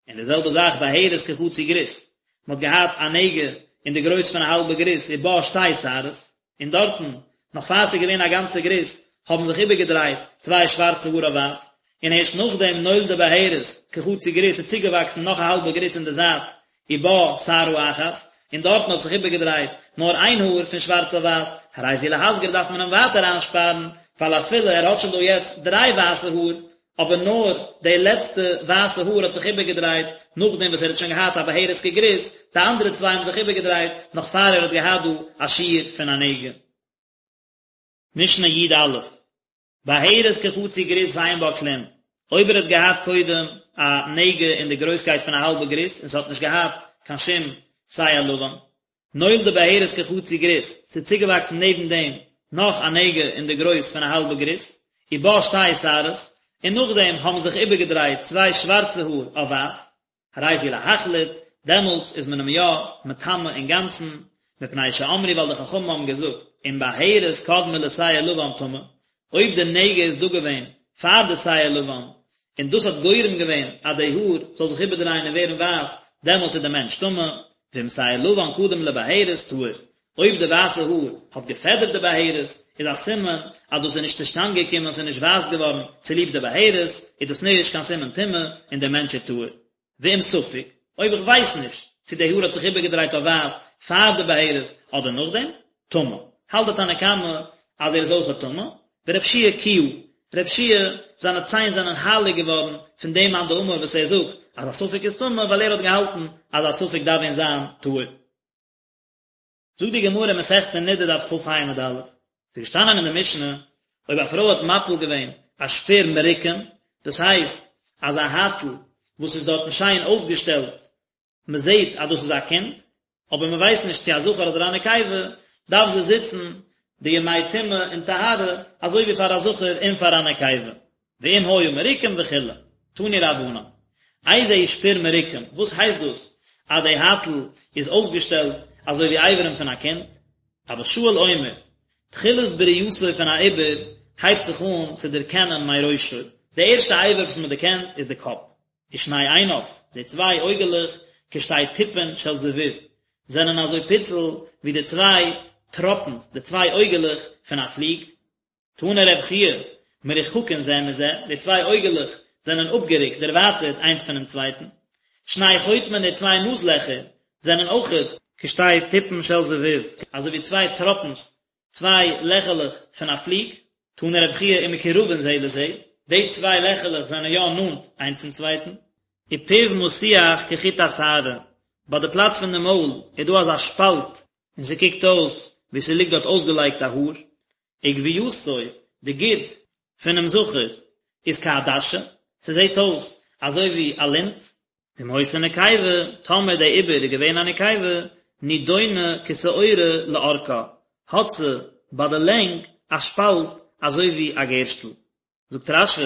און די זעלבע זאך בהרת כחצי גריס, מען האט געהאט א נגע אין די גרויס פון א האלבע גריס ובה שתי שערות, און דארטן, נאך פאר ס'איז געווען א גאנצע גריס, האבן זיך איבערגעדרייט צוויי שווארצע האר אויף ווייס, און ערשט נאכדעם נולדה בהרת כחצי גריס איז צוגעוואקסן נאך א האלבע גריס אין די זייט ובה שערה אחת, און דארטן האט זיך איבערגעדרייט נאר איין האר פון שווארץ אויף ווייס, הרי זו להסגיר דארף מען אים ווייטער איינשפארן, ווייל אפילו ער האט שוין דא יעצט דריי ווייסע האר, אבער נאר די לעצטע ווייסע האר האט זיך איבערגעדרייט נאכדעם וואס ער האט שוין געהאט א בהרת כגריס, די אנדערע צוויי האבן זיך איבערגעדרייט נאך פאר ער האט געהאט דא א שיעור פון א נגע. משנה י"א, בהרת כחצי גריס ואין בה כלום, אויב ער האט געהאט קודם א נגע אין די גרויסקייט פון א האלבע גריס און ס'האט נישט געהאט קיין שום שער לבן, נולדה בהרת כחצי גריס, ס'איז צוגעוואקסן נעבן דעם נאך א נגע אין די גרויס פון א האלבע גריס, ובה שתי שערות, און נאכדעם האבן זיך איבערגעדרייט צוויי שווארצע האר אויף ווייס, הרי זו להחליט, דעמאלטס איז מען אים יא מטמא אינגאנצן, מפני שאמרו ווייל די חכמים האבן געזאגט, אם בהרת קדמה לשער לבן טמא, אויב די נגע איז דא געווען פאר די שער לבן, און דאס האט גורם געווען אז די האר זאל זיך איבערדרייען און ווערן ווייס, דעמאלט איז די מענטש טמא, ואם שער לבן קדם לבהרת טהור. אויב די ווייסע האר האט געפעדערט די בהרת, איז א סימן אז דאס איז נישט צושטאנד געקומען, ס'איז נישט ווייס געווארן צוליב די בהרת, איז דאס נישט קיין סימן טומאה און דער מענטש איז טהור. ואם ספק, אויב איך ווייס נישט צו די האר האט זיך איבערגעדרייט אויף ווייס פאר די בהרת אדער נאכדעם, טמא. האלט די תנא קמא אז ער איז אויכעט טמא, ורבי יהושע קיהה, רבי יהושע זיינע ציין זענען הייליג געווארן פון דעם מאן דאמר וואס ער זאגט אז א ספק איז טמא ווייל ער האט געהאלטן אז א ספק דארף ווען זיין טהור. זאגט די גמרא אין מסכת נדה דף כ"ה עמוד א', ס'איז געשטאנען אין די משנה, אויב א פרוי האט מפיל געווען א שפיר מרוקם, דאס הייסט אז א הייטל וואס איז דארטן שיין אויסגעשטעלט, מען זעט אז דאס איז א קינד, אבער מען ווייסט נישט צו א זכר אדער א נקבה, דארף זי זיצן די ימי טומאה און טהרה אזוי ווי פאר א זכר און פאר א נקבה. ואם היה מרוקם וכו', תנו רבנן, איזהו שפיר מרוקם, וואס הייסט דאס אז די הייטל איז אויסגעשטעלט אזוי ווי אברים פון א קינד? אבא שאול אומר, תחילת בריאתו פון א עובר הייבט זיך אן צו דערקענען מראשו, די ערשטע אבר וואס מען דערקענט איז די קאפ, ושני עיניו, די צוויי אויגעלעך, כשתי טיפין של זבוב, זענען אזוי פיצל ווי די צוויי טראפנס, די צוויי אויגעלעך פון א פליג, תנא רב חייא, מרוחקין זה מזה, די צוויי אויגעלעך זענען אפגערוקט, דערווייטערט, איינס פונעם צווייטן. שני חוטמין, די צוויי נאז לעכער, זענען אויכעט כשתי טיפין של זבוב, אזוי ווי צוויי טראפנס, צוויי לעכעלעך פון א פליג. תנא רב חייא ומקורבין זה לזה, די צוויי לעכעלעך זענען יא נאנט איינס צום צווייטן. ופיו מתוח כחוט השערה, ביי די פלאץ פון די מויל איז דא אזא שפאלט און ס'קוקט אויס ווי ס'ליגט דארט אויסגעלייגט א האר. וגויתו, די גיד פונעם זכר איז כעדשה, ס'זעט אויס אזוי ווי א לינט. ואם היתה נקבה, טאמער די עובר איז געווען א נקבה, נידונה כשעורה לארכה, האט זי ביי די לענג א שפאלט אזוי ווי א גערשטל. זאגט רש"י,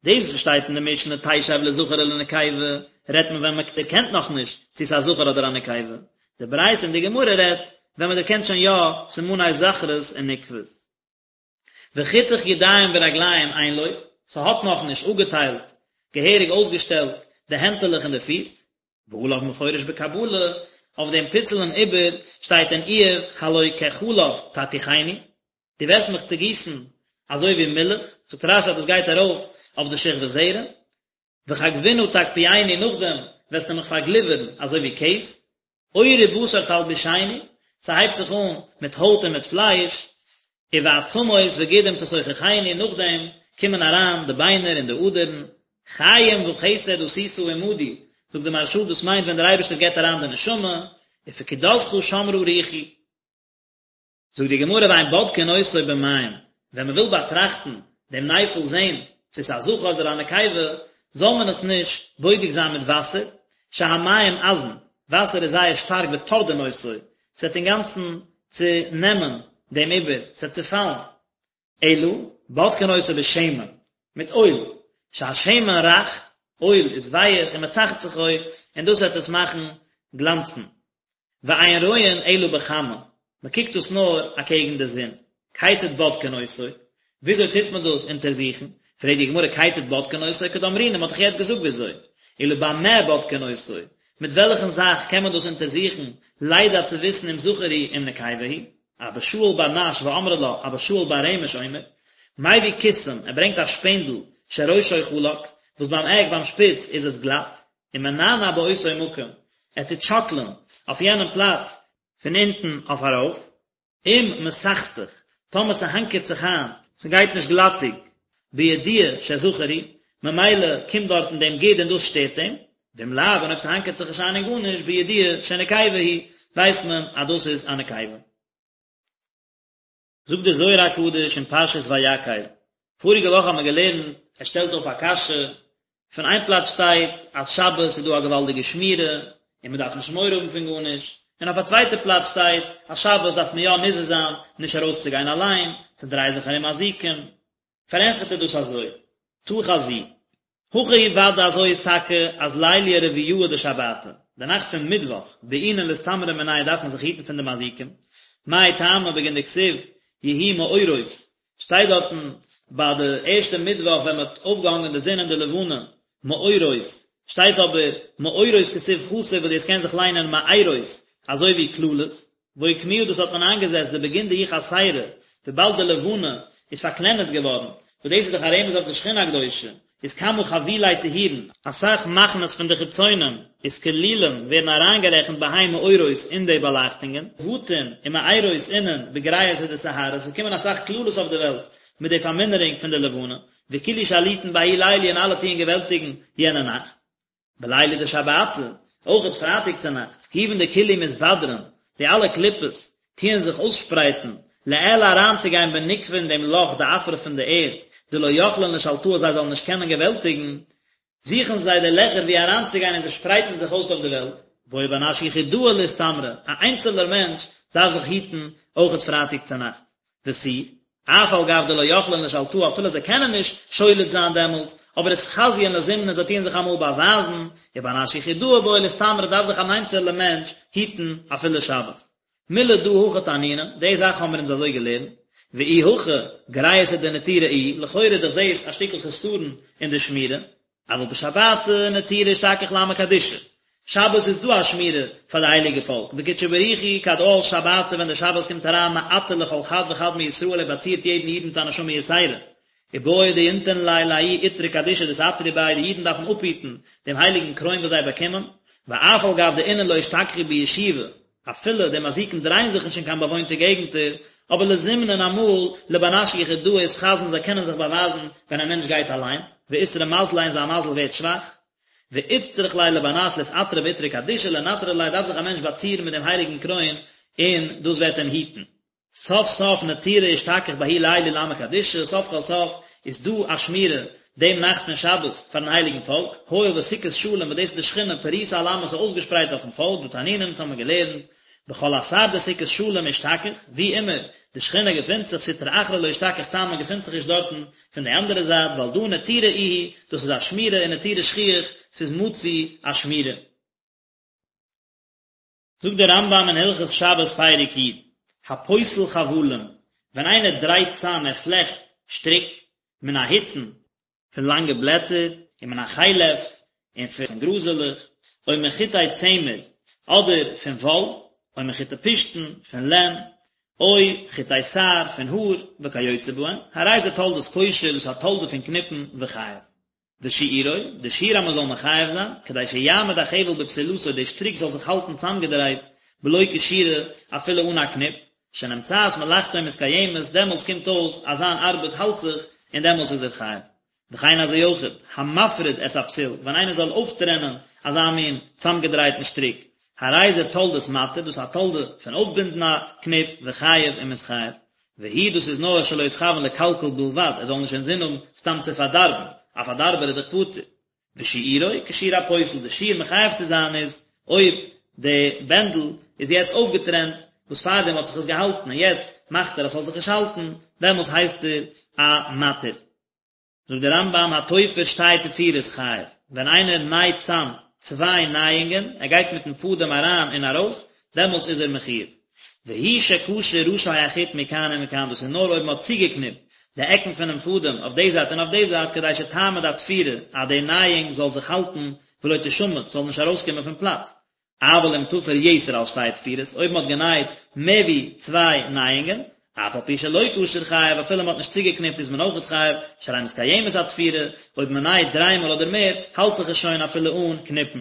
דאס וואס שטייט אין די משנה תשב לזכר ולנקבה, רעדט מען ווען מען דערקענט נאכנישט צו ס'איז א זכר אדער א נקבה, די ברייתא אין די גמרא רעדט ווען מען דערקענט שוין יא סימני זכרות און נקבות. וחיתוך ידיים ורגליים אין לו, ס'האט נאכנישט אפגעטיילט, געהעריג אויסגעשטעלט, די הענטעלעך און די פיס, ועליו מפורש בקבלה, אויף דעם פיצלען עובר שטייט אין איוב הלא כחלב תתיכני, דו וועסט מיך צעגיסן אזוי ווי מילך, זאגט רש"י אז דאס גייט ארויף אויף די שכבת זרע, וכגבינה תקפיאני נאכדעם וועסטו מיך פארגליווערן אזוי ווי קעז, עור ובשר תלבישני, ס'הייבט זיך אן מיט הויט און מיט פלייש, ובעצמות וגידים תסוככני נאכדעם קומען אריין די ביינער און די אדערן, חיים וחסד עשית עמדי, זאגט די מהרש"א דאס מיינט ווען דער אייבערשטער געבט אריין די נשמה, ופקודתך שמרה רוחי. זאגט די גמרא ואין בודקין אותו במים, ווען מען וויל באטראכטן דעם נפל זען צו ס'איז א זכר אדער א נקבה, זאל מען עס נישט בודק זיין מיט וואסער, שהמים עזין, וואסער איז זייער שטארק וטורדין אותו, ס'וועט אינגאנצן צונעמען דעם עובר, ס'וועט צופאלן, אלא בודקין אותו בשמן, מיט אויל, שהשמן רך, אויל איז ווייעך ומצחצחו, און דאס וועט עס מאכן גלאנצן. ואין רואין אלא בחמה, מען קוקט דאס נאר אקעגן די זון. כיצד בודקין אותו? וויאזוי טוט מען דאס אונטערזוכן? פרעגט די גמרא כיצד בודקין אותו? כדאמרינן, מען האט דאך יעצט געזאגט וויאזוי. אלא במה בודקין אותו? מיט וועלכן זאך קען מען דאס אונטערזוכן, לידע צו וויסן אם זכר הוא אם נקבה הוא? אבא שאול בר נש ואמרי לה אבא שאול בר רמש אומר, מביא קיסם, ער ברענגט א שפענדל, שראשו חלק, וואס ביים עק, ביים שפיץ, איז עס גלאט, ומנענע באותו מקום, ער טוט שאקלען אויף יענעם פלאץ, פון אונטן אויף ארויף, אם מסכסך, טאמער ס'האנקערט זיך איין, ס'גייט נישט גלאטיג, בידוע שזכר הוא, ממילא קומט דארטן דעם גיד און דאס שטערט אים, ואם לאו, און אויב ס'האנקערט זיך נישט איין אין גארנישט, בידוע שנקבה היא, ווייסט מען אז דאס איז א נקבה. זאגט דער זוהר הקדוש אין פרשת ויקהל, פאריגע וואך האבן מיר געלערנט, ער שטעלט אויף א קשיא, פון איין פלאץ שטייט אז שבת איז דא א געוואלדיגע שמירה און מען דארף נישט מורא האבן פון גארנישט, און אויף א צווייטע פלאץ שטייט אז שבת דארף מען יא נזהר זיין נישט ארויסצוגיין אליין, ס'דרייען זיך ארום מזיקים, פארענטפערט ער דאס אזוי, תא חזי, הכי הוא ודאי אזוי איז טאקע אז ליליא רביעאה דשבתא, די נאכט פון מיטוואך, בעינן לאסתמרא מינייהו דארף מען זיך היטן פון די מזיקים, מאי טעמא בגין דכתיב יהיו מאורות, שטייט דארטן ביי די ערשטע מיטוואך ווען מען האט אויפגעהאנגען די זון און די לבנה, מאורות, שטייט אבער מאורות כתיב חסר וואס דאס קען זיך ליינען מארות, אזוי ווי קללות. ואוקמוה דאס האט מען איינגעזעצט דבגין דהיא חסירא, וויבאלד די לבנה איז פארקלענערט געווארן, וואס דאס איז דאך א רמז אויף די שכינה הקדושה, איז כמה חבילי טהורין, אסאך מחנות פון די חיצונים, אתכלילן ווערן אריינגערעכנט בהאי מאורות אין די באלייכטונגען, בטין ומאירות אינון בגריעותא דסיהרא, עס קומען אסאך קללות אויף די וועלט מיט די פארמינערונג פון די לבנה, וכולהו שליטין בההוא ליליא און אלע טוען געוועלטיגן יענע נאכט. בליליא דשבתא, אויכעט פרייטאג צונאכטס, כיוון דכולהו מתבדרן, די אלע קליפות טוען זיך אויסשפרייטן, לעילא אריינצוגיין בנוקבא אין דעם לאך דעפרא פון די ערד, דלא יכלין לשלטאה זיי זאלן נישט קענען געוועלטיגן, זוכן זיי די לעכער וואו אריינצוגיין און זיי שפרייטן זיך אויס אויף די וועלט. בעי בר נש יחידאה לאסתמרא, א איינצעלער מענטש דארף זיך היטן אויכעט פרייטאג צונאכטס. ותו, אף על גב דלא יכלין לשלטאה אפילו זיי קענען נישט שולט זיין דעמאלטס, אבער אתחזיין לזימנין זיי טוען זיך אמאל באווייזן, ובר נש יחידאה בעי לאסתמרא דארף זיך אן איינצעלע מענטש היטן אפילו שבת. מילי דא הכי תנינן, די זאך האמיר אונז אזוי געלערנט, ואי הכי גריעותא דנטירא איהי, לכאורה איז דאך דאס א שטיקל חסרון אין די שמירה, אבל בשבתא נטירא אשתכח לעמא קדישא, שבת איז דא א שמירה פאר די הייליגע פאלק, וקודשא בריך הוא כד עאל שבתא ווען די שבת קומט אריין מעטר לכל חד וחד מישראל ער באצירט יעדן איד מיט א נשמה יתירה, ובעי דינטרון ליה לההוא עטרא קדישא דאתעטרו ביה די אידן דארפן אפהיטן דעם הייליגן קרוין וואס זיי באקומען, ואף על גב דאינון לא אשתכחו בישובא, אפילו די מזיקים דרייען זיך נישט אין קיין באוואוינטע געגנטער, אבער לזימנין אמאל לבר נש יחידאה אתחזון זיי קענען זיך באווייזן ווען א מענטש גייט אליין, ואתרע מזליה און זיין מזל ווערט שוואך. ואיצטריך ליה לבר נש לאתעטרא בעטרא קדישא לנטרא ליה דארף זיך א מענטש באצירן מיט דעם הייליגן קרוין און דאס וועט אים היטן. סוף סוף נטירא אשתכח בההוא ליליא לעמא קדישא, סוף כל סוף איז דא א שמירה דעם נאכט פון שבת פארן הייליגן פאלק, הואיל וסוכת שלום וואס דאס איז די שכינה פריסה על עמא ס'איז אויסגעשפרייט אויפן פאלק, דהא תנינן אונז האמיר געלערנט, בכל אתר דסוכת שלום אשתכח, ווי אימער די שכינה געפינט זיך סטרא אחרא לא אשתכח תמן געפינט זיך נישט דארטן פון די אנדערע זייט ועל דא נטירא איהי, דאס איז א שמירה ונטירא שכיח, ס'איז מצוי א שמירה. זאגט דער רמב"ם אין הלכות שבת פרק י', הפותל חבלים, ווען איינער דרייט צאם ער פלעכט שטריק, מן ההוצין, פון לאנגע בלעטער, ומן החלף, און פון גראזעלעך, או מחוטי צמר, אדער פון וואל, או מחוטי פשתן, פון לען, או חוטי שער, פון האר, וכיוצא בהן, הרי זה תולדת קושר, דאס איז א תולדה פון קניפן, וחייב. ושיעורו, די שיעור אז מען זאל מחייב זיין, כדי שיעמוד החבל בפתילתו, די שטריק זאל זיך האלטן צאמגעדרייט, בלא קשירה, אפילו אן א קניפ, שנמצאת מלאכתו מתקיימת, דעמאלטס קומט אויס אז זיין ארבעט האלט זיך, און דעמאלטס איז ער חייב. וכן אזוי אויכעט, המפריד את הפתיל, ווען איינער זאל אויפטרענען אזא מין צאמגעדרייטן שטריק, הרי זה תולדת מתיר, דאס איז א תולדה פון אויפבינדן א קניפ, וחייב און מ'איז חייב. והוא דאס איז נאר שלא יתכוון לקלקל בלבד, ער זאל נישט אינזין האבן סתם צו פארדארבן, א פארדארבער איז דאך פטור. ושיעורו כשיעור הפותל, די שיעור מחייב צו זיין איז אויב די בענדל איז יעצט אויפגעטרענט, וואס פארדעם האט זיך עס געהאלטן און יעצט מאכט ער אז ס'זאל זיך נישט האלטן, דעמאלס הייסט ער א מתיר. זאגט דער רמב"ם התופר שתי תפירות חייב, ווען איינער נייט צאם צוויי נייאונגען, ער גייט מיטן פאדעם אריין און ארויס, דעמאלטס איז ער מחויב. והוא שקשר ראשי החוט מכאן ומכאן, דאס איז נאר אויב מען האט צוגעקניפט די עקן פונעם פאדעם אויף די זייט און אויף די זייט כדי שתעמוד התפירה, אז די נייאונג זאל זיך האלטן ולא תשמט, ס'זאל נישט ארויסקומען פון פלאץ. אבל אם תפר יתר על שתי תפירות, אויב מען האט גענייט מער ווי צוויי נייאונגען, אף על פי שלא קשר חייב, אפילו מען האט נישט צוגעקניפט איז מען אויכעט חייב, שהרי מתקיימת התפירה, אויב מען נייט דריי מאל אדער מער, האלט זיך עס שוין אפילו אן קניפן.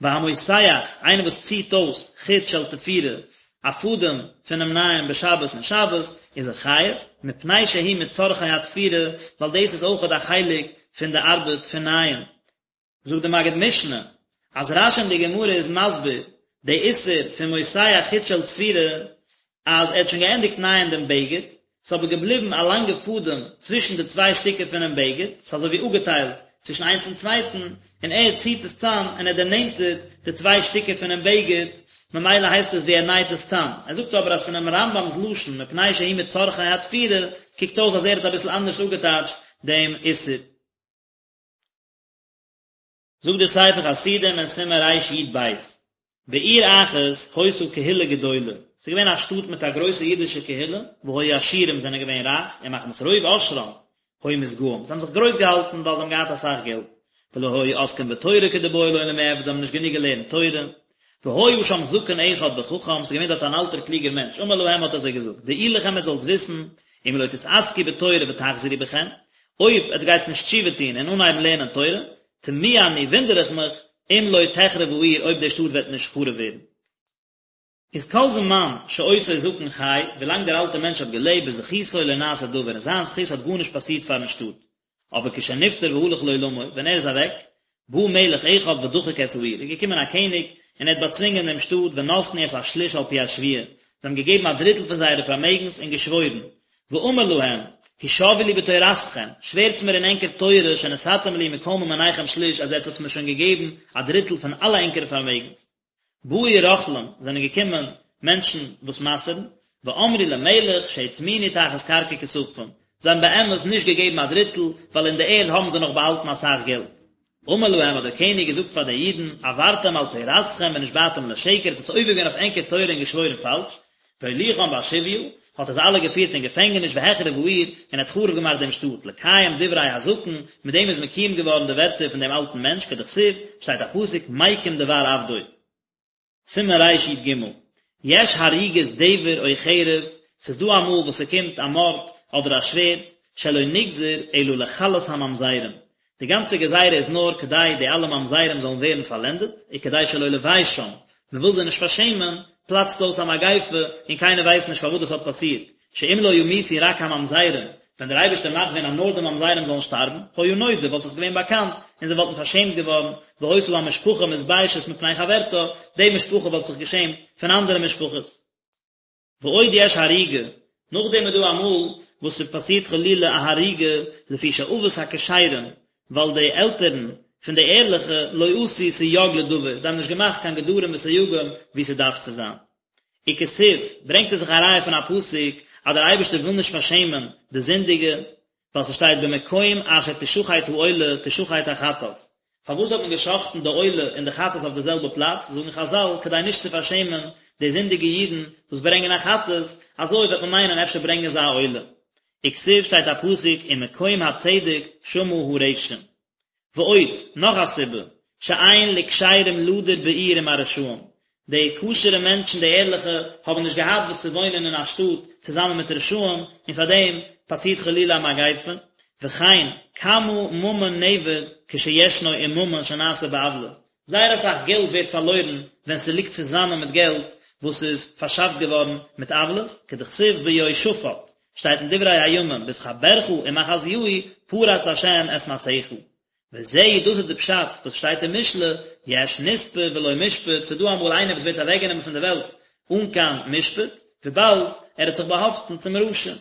והמותח, איינער וואס ציט אויס חוט של תפירה, א פאדעם פונעם נייען בשבת אין שבת, איז ער חייב, מפני שהוא מצרכי התפירה, ווייל דאס איז אויכעט א חלק פון די ארבעט פון נייען. זאגט די מגיד משנה אז רש"י אין די גמרא איז מסביר די איסור פון מותח חוט של תפירה אז ער האט שוין געענדיגט נייען דעם בגד, ס'איז אבער געבליבן א לאנגע פאדעם צווישן די צוויי שטיקער פונעם בגד, ס'איז אזוי ווי אפגעטיילט צווישן איינס און צווייטן, און ער ציט עס צאם און ער דערנענטערט די צוויי שטיקער פונעם בגד, ממילא הייסט עס ווי ער נייט עס צאם. ער זאגט אבער אז פונעם רמב"ם'ס לשון מפני שהוא מצרכי התפירה קוקט אויס אז ער האט אביסל אנדערש אפגעטייטשט דעם איסור. זאגט דער ספר חסידים אין סימן רי"ב, בעיר אחת היתה קהילה גדולה, ס'איז געווען א שטאט מיט א גרויסע אידישע קהילה, והיו עשירים זענען געווען רייך, ומחמת רוב עושרם היו מתגאים, זיי האבן זיך גרויס געהאלטן ווייל זיי האבן געהאט אסאך געלט, ולא היו עוסקים בתורה כדבעי למיעבד, זיי האבן נישט גענוג געלערנט תורה. והיה שם זקן אחד וחכם, ס'איז געווען דארט אן אלטער קלוגער מענטש, אמר להם האט ער זיי געזאגט, דעו לכם עטס זאלטס וויסן, אם לא תתעסקו בתורה ותחזרו בכם, אויב עטס גייטס נישט תשובה טון און אנהייבן לערנען תורה, תמוה אני, וואונדער איך מיך, אם לא תחרב העיר, אויב די שטאט וועט נישט חרוב ווערן. איז כל זמן שאותו זקן חי, ווילאנג דער אלטער מענטש האט געלעבט, בזכותו לא נעשה דבר, אין זיין זכות האט גארנישט פאסירט פארן שטאט. אבער כשנפטר והלך לעולמו, ווען ער איז אוועק, בא מלך אחד ודחק את העיר, איז געקומען א קעניג און ער האט באצווינגען דעם שטאט ונתנו את השליש על פי השבועה, זיי האבן געגעבן א דריטל פון זייערע פארמעגנס און געשוואוירן, ואמר להם, השבעו לי בתורתכם, שווערטס מיר אין ענקער תורה שנתתם לי מכל ממוניכם שליש אז עטס האטס מיר שוין געגעבן א דריטל פון אלע ענקערע פארמעגנס. באו רוכלים, זענען געקומען מענטשן וואס מסר'ן, ואמרו למלך שהטמינו תחת קרקע כספם, זיי האבן באמת נישט געגעבן א דריטל, ווייל אין די ערד האבן זיי נאך באהאלטן אסאך געלט. אמר להם האט דער קעניג געזאגט פאר די אידן, עברתם על תורתכם ונשבעתם לשקר, עטס האטס עובר געווען אויף ענקער תורה און געשוואוירן פאלש, והוליכם בשביה, האט ער זיי אלע געפירט אין געפענגעניש והחריב העיר, און האט חרוב געמאכט דעם שטאט, לקיים דברי הזקן, מיט דעם איז מקוים געווארן די ווערטער פון דעם אלטן מענטש, כדכתיב, שטייט א פסוק, מקים דבר עבדו. סימן רי"ג, יש הריגת דבר או חרב, ס'איז דא אמאל וואס ס'קומט א מארד אדער א שווערד, שלא נגזר אלא לכלות הממזרים, די גאנצע גזירה איז נאר כדי די אלע ממזרים זאלן ווערן פארלענדעט, וכדי שלא לביישם, מען וויל זיי נישט פארשעמען, פלאצט אויס א מגיפה און קיינער ווייסט נישט פארוואס דאס האט פאסירט, שאם לא ימותו רק הממזרים, ווען דער אייבערשטער מאכט ווען אז נאר די ממזרים זאלן שטארבן, היה נודע, וואלט עס געווען באקאנט, און זיי וואלטן פארשעמט געווארן, והיתה המשפחה מתביישת מפני חברתה, די משפחה וואלט זיך געשעמט פון אנדערע משפחות. ועוד יש הריגה, נאכדעם איז דא אמאל וואס ס'פאסירט חלילה א הריגה לפי שאבות הכשרים, ווייל די עלטערן פון די ערליכע לא עשו סייג לדבר, זיי האבן נישט געמאכט קיין גדרים וסייגים ווי ס'דארף צו זיין. וכתיב, ברענגט ער זיך א ראיה פון א פסוק אז דער אייבערשטער וויל נישט פארשעמען די זינדיגע, ווייל ס'שטייט במקום אשר תשחט העולה תשחט החטאת. פארוואס האט מען גע'שחט'ן די עולה און די חטאת אויף די זעלבע פלאץ? זאגן חזל, כדי נישט צו פארשעמען די זינדיגע אידן וואס ברענגען א חטאת, אזוי וועט מען מיינען אפשר ברענגען זיי א עולה. וכתיב שטייט א פסוק ומקום הצדק שמה הרשע. ועוד, נאך א סיבה, שאין לכשרים לדור בעיר עם הרשעים, די כשר'ע מענטשן, די ערליכע, האבן נישט געהאט וואס צו וואוינען אין א שטאט צוזאמען מיט רשעים, און פאר דעם פאסירט חלילה א מגיפה, וכן, כמה ממון נאבד כשישנו עם ממון שנעשה בעוולה, זייער אסאך געלט ווערט פארלוירן ווען ס'ליגט צוזאמען מיט געלט וואס איז פארשאפט געווארן מיט עוולות, כדכתיב ביהושפט, שטייט אין דברי הימים, בהתחברך עם אחזיהו פרץ השם את מעשיך. וזהו דאס איז די פשט וואס שטייט אין משלי, יש נספה בלא משפט, ס'איז דא אמאל איינער וואס ווערט אוועקגענומען פון די וועלט אן קיין משפט, וויבאלד ער האט זיך באהאפטן צום רשע.